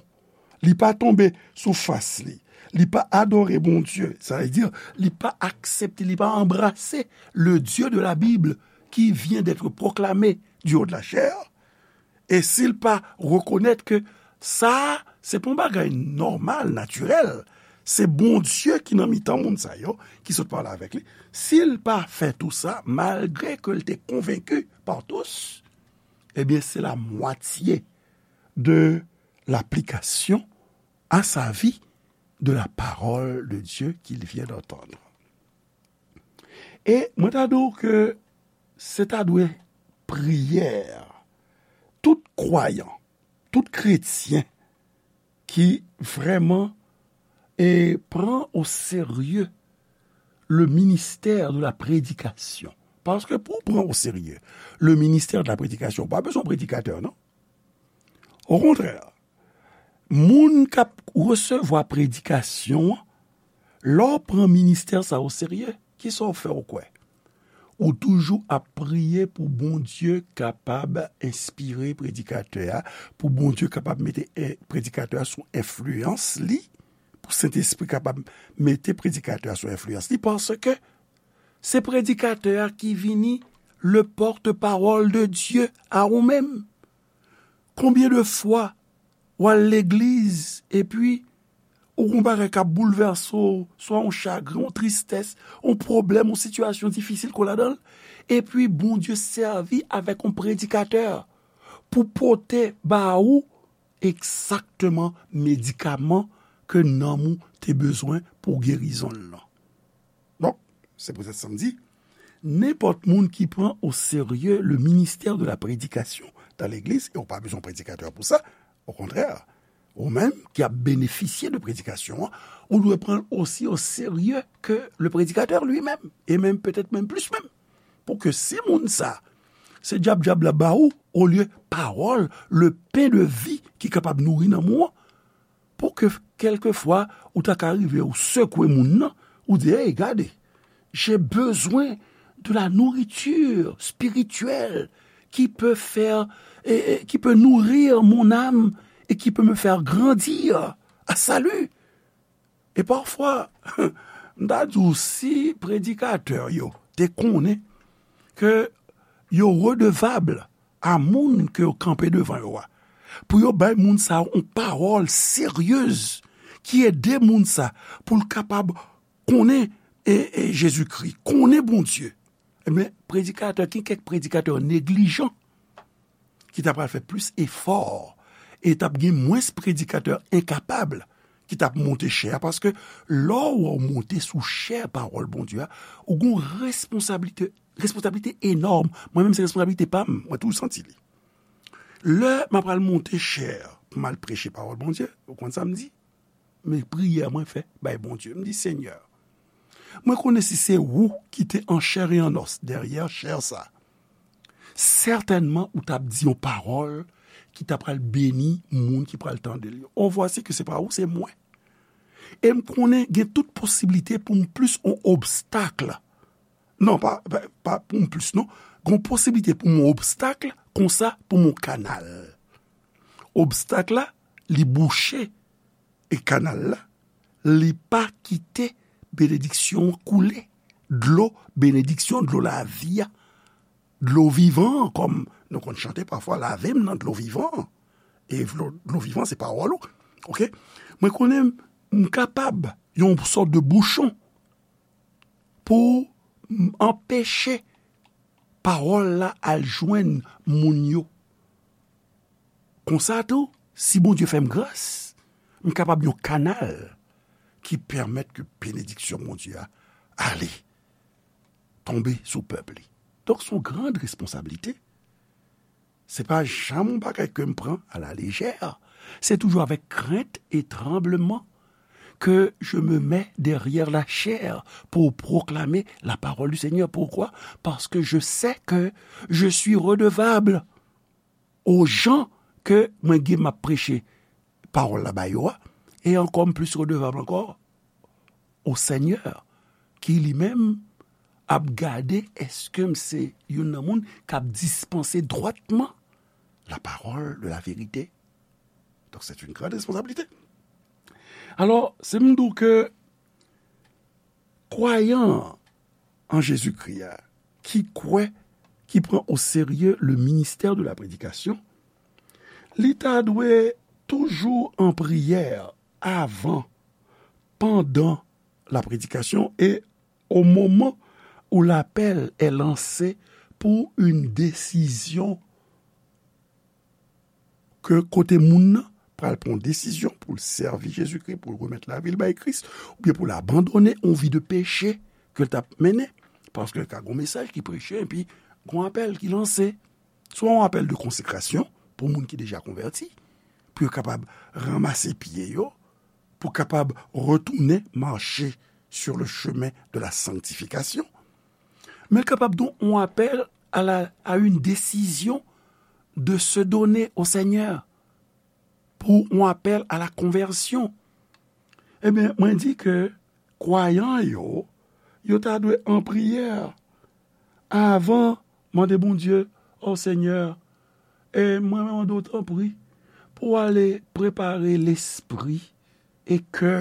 li pa tonbe sou fas li, li pa adore Bondye, sa vle di, li pa aksepte, li pa anbrase le Dieu de la Bible qui vient d'être proclamé du haut de la chair, e si l pa rekonèt ke sa a, se pa yon bagay nòmal, natirèl, se Bondye ki nan mitan moun sa yo, ki sot pale avèk li. Si l pa fè tou sa, malgre ke l te konvenki par tous, ebyen, se la mwatye de l'application à sa vie de la parole de Dieu qu'il vient d'entendre. E mwen ta di w ke se ta dwe priyè tout kwayan, tout kretyen ki vrèman e pran o serye le ministère de la prédication. Paske pou w pran o serye le ministère de la prédication, ou pa bezwen predikatè, non. Okontrè, moun k ap resevwa predikasyon an, lè w pran ministè sa o serye, kisa w fè ou kwè? Ou toujou ap priye pou Bondye kapab enspire predikatè a, pou Bondye kapab mete, eh, predikatè a sou enfliyans li, pou Sentespri kapab mete predikatè a sou enfliyans li, paske se predikatè a ki vini le pòtpawòl de Dye a ou menm. Konbyen de fwa w al legliz, epi ou gen yon bagay k ap boulvèse w, swa yon chagren, yon tristès, yon pwoblèm, yon sitiyasyon difisil ke w ladan l, epi Bondye sèvi avèk yon predikatè pou pote ba ou egzakteman medikaman ke nanm ou te bezwen pou gerizon l lan. Donk, se poutèt sa m di, nenpòt moun ki pran o serye le ministère de la prédication dans l'église, e ou pa bezwen predikatè pou sa, okontrè, ou menm ki ap benefisye de predikasyon an, ou dwe pran l osi o serye ke le predikatè li menm, e menm petèt menm plis menm. Pou ke si moun sa, se djab djab la ba ou, olye pawòl, le pen de vi ki kapab nouri nanm ou an, pou ke kèlkefwa ou ta ka rive ou sekwe moun nan, ou di, hey, gade, j'ai besoin de la nourriture spirituelle qui peut faire, et, et qui peut nourrir mon âme et qui peut me faire grandir à salut. E pafwa, m ta di w, si predikatè yo te konnen ke yo redevab a moun ke yo kanpe devan yo a, pou yo bay moun sa yo yon pawòl seryez ki ede moun sa pou l kapab konnen, e, e, Jezikri, konnen Bondye. Ebyen, predikatè, gen kèk predikatè neglijan ki ta pral fè plis efò, e t ap gen mwens predikatè enkapab ki t ap monte chè a, paske lè w wè w monte sou chè pawòl Bondye a, ou gen yon responsablite, responsablite enòm. Mwen menm, se responsablite pa m, mwen toujou santi li. Lè m ap pral monte chè pou m al preche pawòl Bondye, ou konn sa m di? Men priyè mwen fè bay Bondye. M di, Senyè, mwen konnen si se ou ki te an chè e an nòs dèyè chè sa, sètènman ou t ap di yon pawòl ki ta pral beni moun ki pral tande l yo. Oh, voici que c'est pas ou, c'est moi. E m konnen gen tout posiblite pou m plis yon obstak. Non, pa, pa, pa pou m plis, non. Gen posiblite pou m yon obstak, konsa pou m yon kanal. Obstak la, li bouche, e kanal la, li pa kite benediksyon an koule. Dlo benediksyon, dlo lavi a, dlo vivan an, kòm nou konn chante pafwa, lave m nan dlo vivan an. E dlo, dlo vivan, se pawòl ou. Oke? Mwen konnen m kapab yon sòt de bouchon pou m anpeche pawòl la al jwenn moun yo. Konsa tou, si Bondye fè m gras, m kapab yon kanal ki pèmèt ke benediksyon Bondye a ale, tonbe sou pèp li. Donk, se yon gran responsablite. Se pa janm yon bagay ke m pran à la légère. C'est toujours avec crainte et tremblement que je me mets derrière la chair pour proclamer la parole du Seigneur. Pourquoi? Parce que je sais que je suis redevable aux gens ke mwen gen m ap preche pawòl la ba yo a, e ankò m plis redevab ankò au Seigneur, ki li menm ap gade èske m se youn nan moun k ap dispanse dwatman la parole de la vérité. Donc, c'est une grande responsabilité. Alò, si m di w ke kwayan an Jezikri a, ki kwè, ki pran o serye le ministère de la prédication, li ta dwe toujou an priyè avan, pandan la prédication et au moment où l'appel est lancé pour une décision ke kote moun nan pral pran yon desizyon pou l sèvi Jezikri, pou l remèt lavi l bay Kris, oubyen pou l abandone yon vi de peche ke l t ap mennen. Paske ka gen yon mesaj ki preche, epi gen yon apèl ki lanse. Swa yon apèl de konsekrasyon pou moun ki deja konvèti, pou yo kapab ranmase pye yo, pou kapab retounen mache sur le chemin de la sanctification. Men l kapab tou yon apèl à la, à une décision de se donner au Seigneur, pou yon apèl à la conversion. Ebyen, mwen di ke kwayan yo, yo ta dwe an priyè avan mande Bondye, o Senyè, e mwen mande w tanpri pou w ale prepare lespri e kè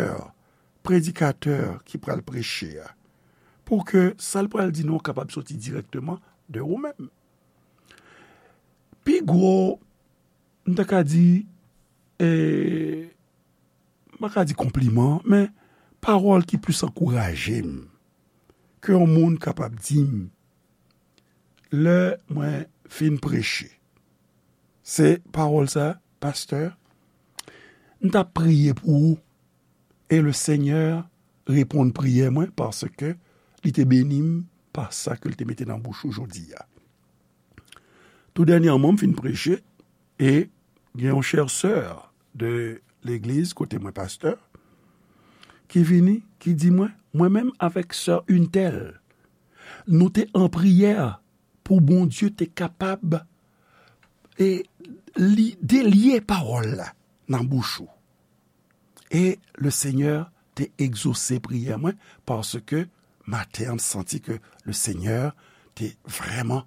predikatè ki pral preche a, pou ke sa l pral di nou kapab soti dirèkteman de ou menm. Pi gwo, m ta ka di, e, m pa ka di konpliman, men pawòl ki plis ankouraje m ke yon moun kapab di m lè mwen fin preche, se pawòl sa, pastè, m t ap priye pou ou, e le Senyè reponn priyè mwen, paske li te beni m pa sa ke l te mete nan bouch ou jodi a. Tou dènyèman, m fin preche, e gen yon chè sè de legliz kote mwen pastè, ki vini, ki di mwen, mwen menm avèk sè Untèl, nou te an priyè pou Bondye te kapab, e, li delye pawòl la nan bouch ou. E le Senyè te egzose priyè mwen, paske maten an, m santi ke le Senyè te vrèman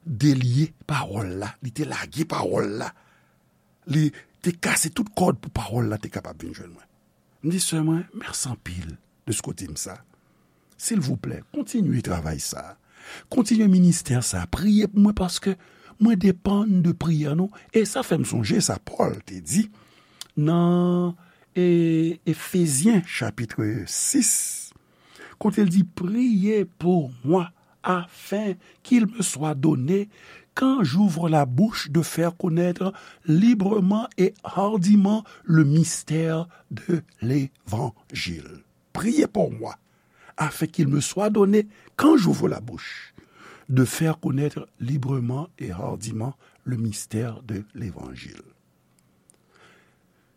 delye pawòl la, li te lage pawòl la, li te kase tout kòd pou pawòl la te kapab vin jwenn mwen. M di sè mwen, mèsi anpil de sa w di m sa. Silvouplè, kontinye travay sa. Kontinye ministè sa. Priye pou mwen paske mwen depann de priyè nou. E sa fè m sonje sa Pòl te di nan, e, Efezyen chapit sis, kote l di, priez pour moi afin qu'il me soit donné, quand j'ouvre la bouche, de faire connaître librement et hardiment le mystère de l'évangile. Priez pour moi, afin qu'il me soit donné, quand j'ouvre la bouche, de faire connaître librement et hardiment le mystère de l'évangile.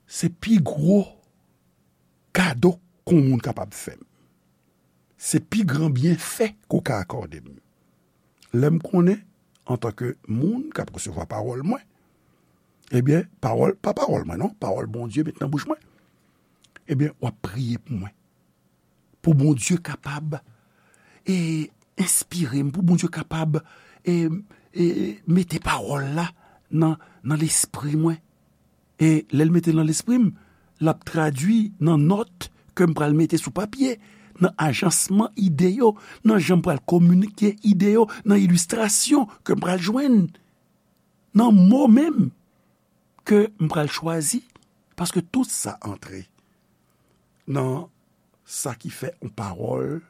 Se pi gwo kado ke yon moun kapab fè m. Se pi gran byenfè ke w ka akòde m. Lè m konnen antanke moun k ap resevwa pawòl mwen, ebyen, pawòl, pa pawòl mwen non, pawòl Bondye met nan bouch mwen, ebyen, w ap priye pou mwen. Pou Bondye kapab, e, enspire m, pou Bondye kapab, e, e, mete pawòl la nan, nan lespri mwen. E lè l mete l nan lespri m, l ap tradui nan nòt ke m pral mete sou papye, nan ajansman ide yo, nan jan m pral kominike ide yo, nan ilistrasyon ke m pral jwenn, nan mo menm ke m pral chwazi, paske tout sa antre nan sa ki fè yon pawòl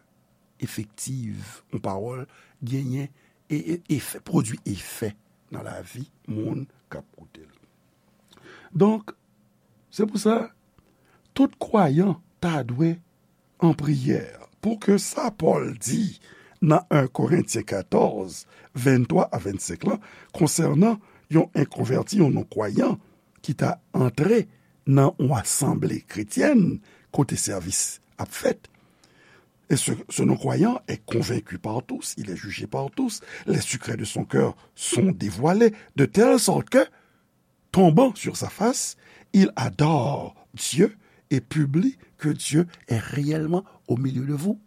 efektiv, yon pawòl genyen e, e, efè, pwodui efè nan lavi moun k ap koute l. Donk, se pou sa, tout kwayan ta dwe an priyè, pou ke sa Pòl di nan en Korentyen katòz, venntwa a vennsenk lan, konsènan yon enkonvèti, yon non-kwayan, ki ta antre nan yon asanble kretyèn kote sèvis ap fèt. Et ce, ce non-croyant est convaincu par tous, il est jugé par tous, les secrets de son cœur sont dévoilés, de telle sorte que, tombant sur sa face, il adore Dieu et publie que Dieu est réellement au milieu de vous.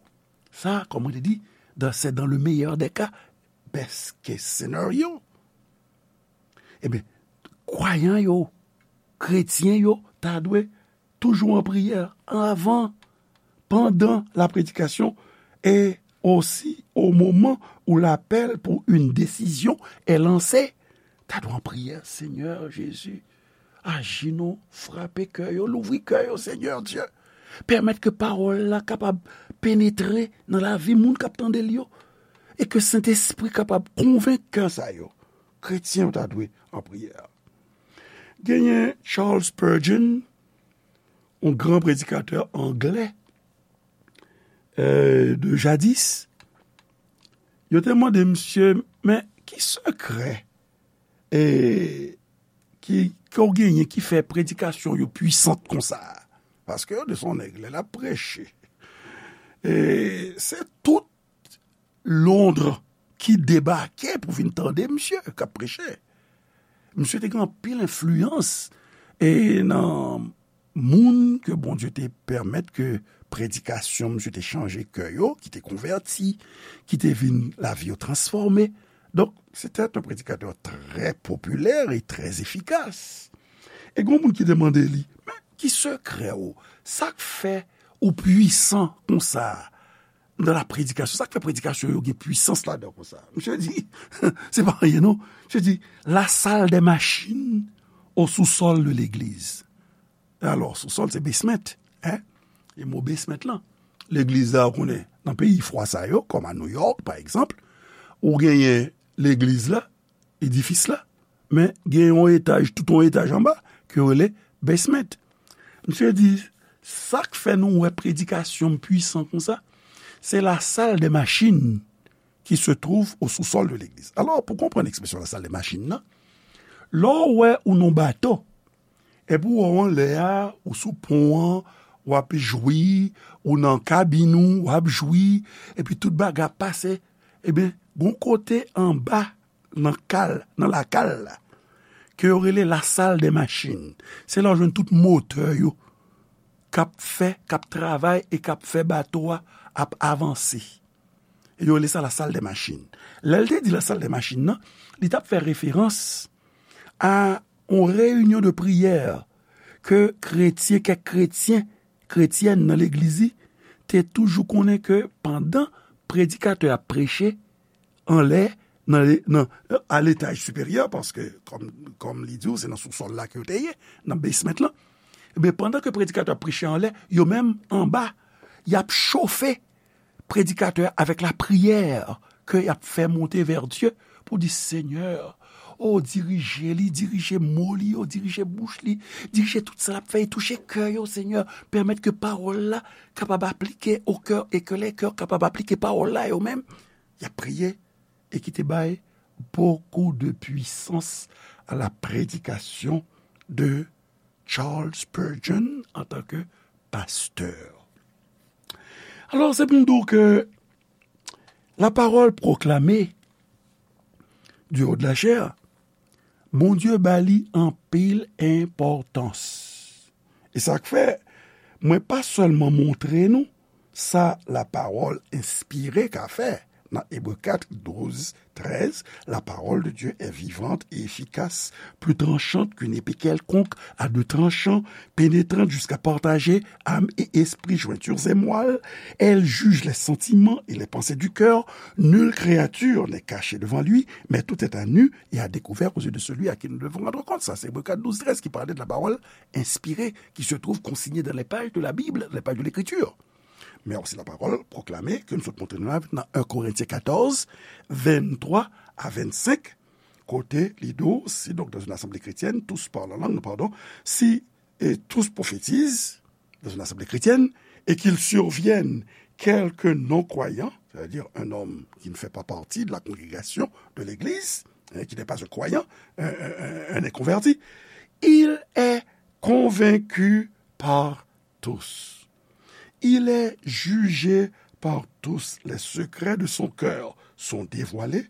Sa, kòm mwen te di, dan, se dans le meilleur des cas, best case scenario. Ebyen, kwayan yo, kretyen yo, ta dwe toujou an priyè, anvan, pandan la prédication et aussi au moment où l'appel pour une décision est lancé. Ta dwe an priyè, Senyè Jezi, aji non, frape kè yo, louvri kè yo, Senyè Dye. Pèmèt ke pawòl la kapab penetre nan lavi moun k ap tande l yo, e ke Sentespri kapab konvenk kè sa yo. Kretyen yo ta dwe an priyè. Genyen Charles Spurgeon, yon gran predikatè anglè, euh, de jadis. Yo te mande misye, men ki sekrè, e, ki, ke w genyen ki fè predikasyon yo pwisant konsa? Paske yo di se yon nèg, lè l ap preche, e, se tout Londres ki debake pou vin tande misye k ap preche. Misye te gen anpil enfliyans, e, nan moun ke Bondye te pèmèt ke predikasyon misye te chanje kè yo, ki te konvèti, ki te vin lavi yo transfòme. Donk, se te yon predikatè trè popilè e trè efikas. E gen moun ki te mande li, men ki sekrè w? Sa k fè ou pwisan konsa nan la predikasyon? Sa k fè predikasyon yo gen pwisans ladan konsa? Misye di, se pa anyen non. Misye di, la salle des machines au sous-sol de l'église. Alò, sous-sol, se basement, hein? E mo basement lan. Legliz la, ou konnen, nan peyi fwa sa yo, kòm a New York, pa egzanp, ou genyen legliz la, edifis la, men gen yon etaj, tout yon etaj anba, ke yo rele basement. Misye di, sa k fè nou wè predikasyon m pwisan konsa, se la salle des machines qui se trouve au sous-sol de l'église. Alò, pou konprann ekspresyon la salle des machines nan, lè w wè ou nan bato, epi w wè w anlè a, ou sou pon an, w ap jwi, ou nan kabin ou, w ap jwi, epi tout bagay ap pase, ebyen, gon kote anba nan kal, nan lakal la, ke yo rele la salle des machines. Se la w jwenn tout motè yo k ap fè, k ap travay e k ap fè bato a ap avanse. E yo rele sa la salle des machines. Lè l te di la salle des machines nan, li t ap fè referans a yon reyinyon de priyè ke kretyen, kèk kretyen, kretyèn nan legliz li te toujou konnen ke pandan predikatè a ap preche anlè, nan, nan, a letaj siperyè, paske, kòm, kòm li di w, se nan sousòl la ke yo te ye, nan basement lan. Ebyen, pandan ke predikatè a ap preche anlè, yo menm anba, y ap chofe predikatè a avèk lapriyè ke y ap fè monte vè Dye pou di, Senyè, o, dirije li, dirije mo li yo, dirije bouch li, dirije tout sa l ap fè e touche kè yo, Senyè. Pèmèt ke pawòl la kapab aplike o kè e ke lè kè kapab aplike pawòl la yo menm. Y ap priye e ki te bay beaucoup de puissance à la prédication de Charles Spurgeon en tant que pasteur. Alò, se pou m di w ke la parole proclamée du haut de la chair, Bondye ba li anpil enpòtans. E sa k fè, mwen pa sèlman montre nou sa lapawòl enspire ka fè. Nan Ebre kat, douz, trèz, la parole de Dieu est vivante et efficace, plus tranchante qu'une épée quelconque, à deux tranchants, pénétrante jusqu'à partager âme et esprit, jointures et moelle. Elle juge les sentiments et les pensées du cœur. Nulle créature n'est cachée devant lui, mais tout est à nu et à découvert aux yeux de celui à qui nous devons rendre compte. Sa se Ebre kat, douz, trèz ki pale de la parole inspirée qui se trouve consignée dans les pages de la Bible, les pages de l'Écriture. Men osi la parole proclamée ke nou sot montre nou la nan un Korentyen katòz, venntwa a vennsenk, kote li di w, si donc dans une assemblée chrétienne, tous parlent en langue, pardon, si et tous prophétisent dans une assemblée chrétienne, et qu'il survienne quelque non-croyant, c'est-à-dire un homme qui ne fait pas partie de la congrégation, de l'église, hein, qui n'est pas un croyant, un, un, un, un inconverti, il est convaincu par tous. Il est jugé par tous. Les secrets de son cœur sont dévoilés,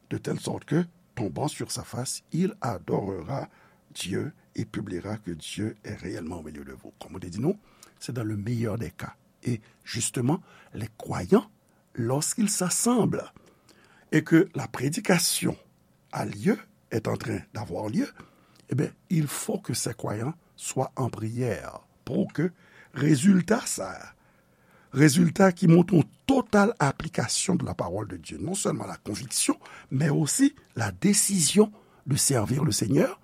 de telle sorte que, tombant sur sa face, il adorera Dieu et publiera que Dieu est réellement au milieu de vous. Comme on dit, nous, c'est dans le meilleur des cas. Et justement, les croyants, lorsqu'ils s'assemblent et que la prédication a lieu, est en train d'avoir lieu, eh bien, il faut que ces croyants soient en prière pour que résultat ça, résultat ki montre yon total aplikasyon de la parole de Dieu, non seulement la conviction, mais aussi la décision de servir le Seigneur,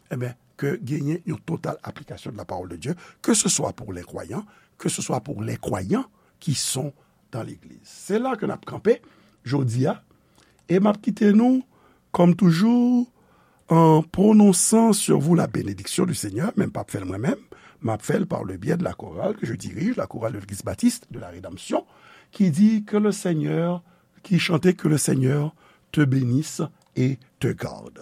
eh bien, que genyen yon total aplikasyon de la parole de Dieu, que ce soit pour les croyants, que ce soit pour les croyants qui sont dans l'église. Se la ke n ap kanpe jodi a, e m ap kite nou, comme toujours, en prononçant sur vous la bénédiction du Seigneur, men m p ap fè l mwen menm, m ap fè l par le biais de la chorale que je dirige, la chorale de l'Église baptiste de la Rédemption, qui dit que le Seigneur, qui chantait que le Seigneur te bénisse et te garde.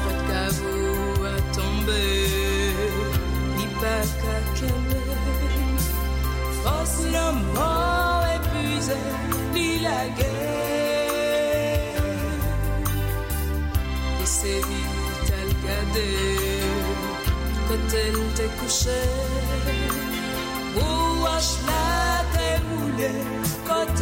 Pòt kavo a tonbe, li pa ka kenbe. Fòs lanmò epuize, li lage. Li sezi, t al gade kote l te kouche. Pou wòch la te woule, kote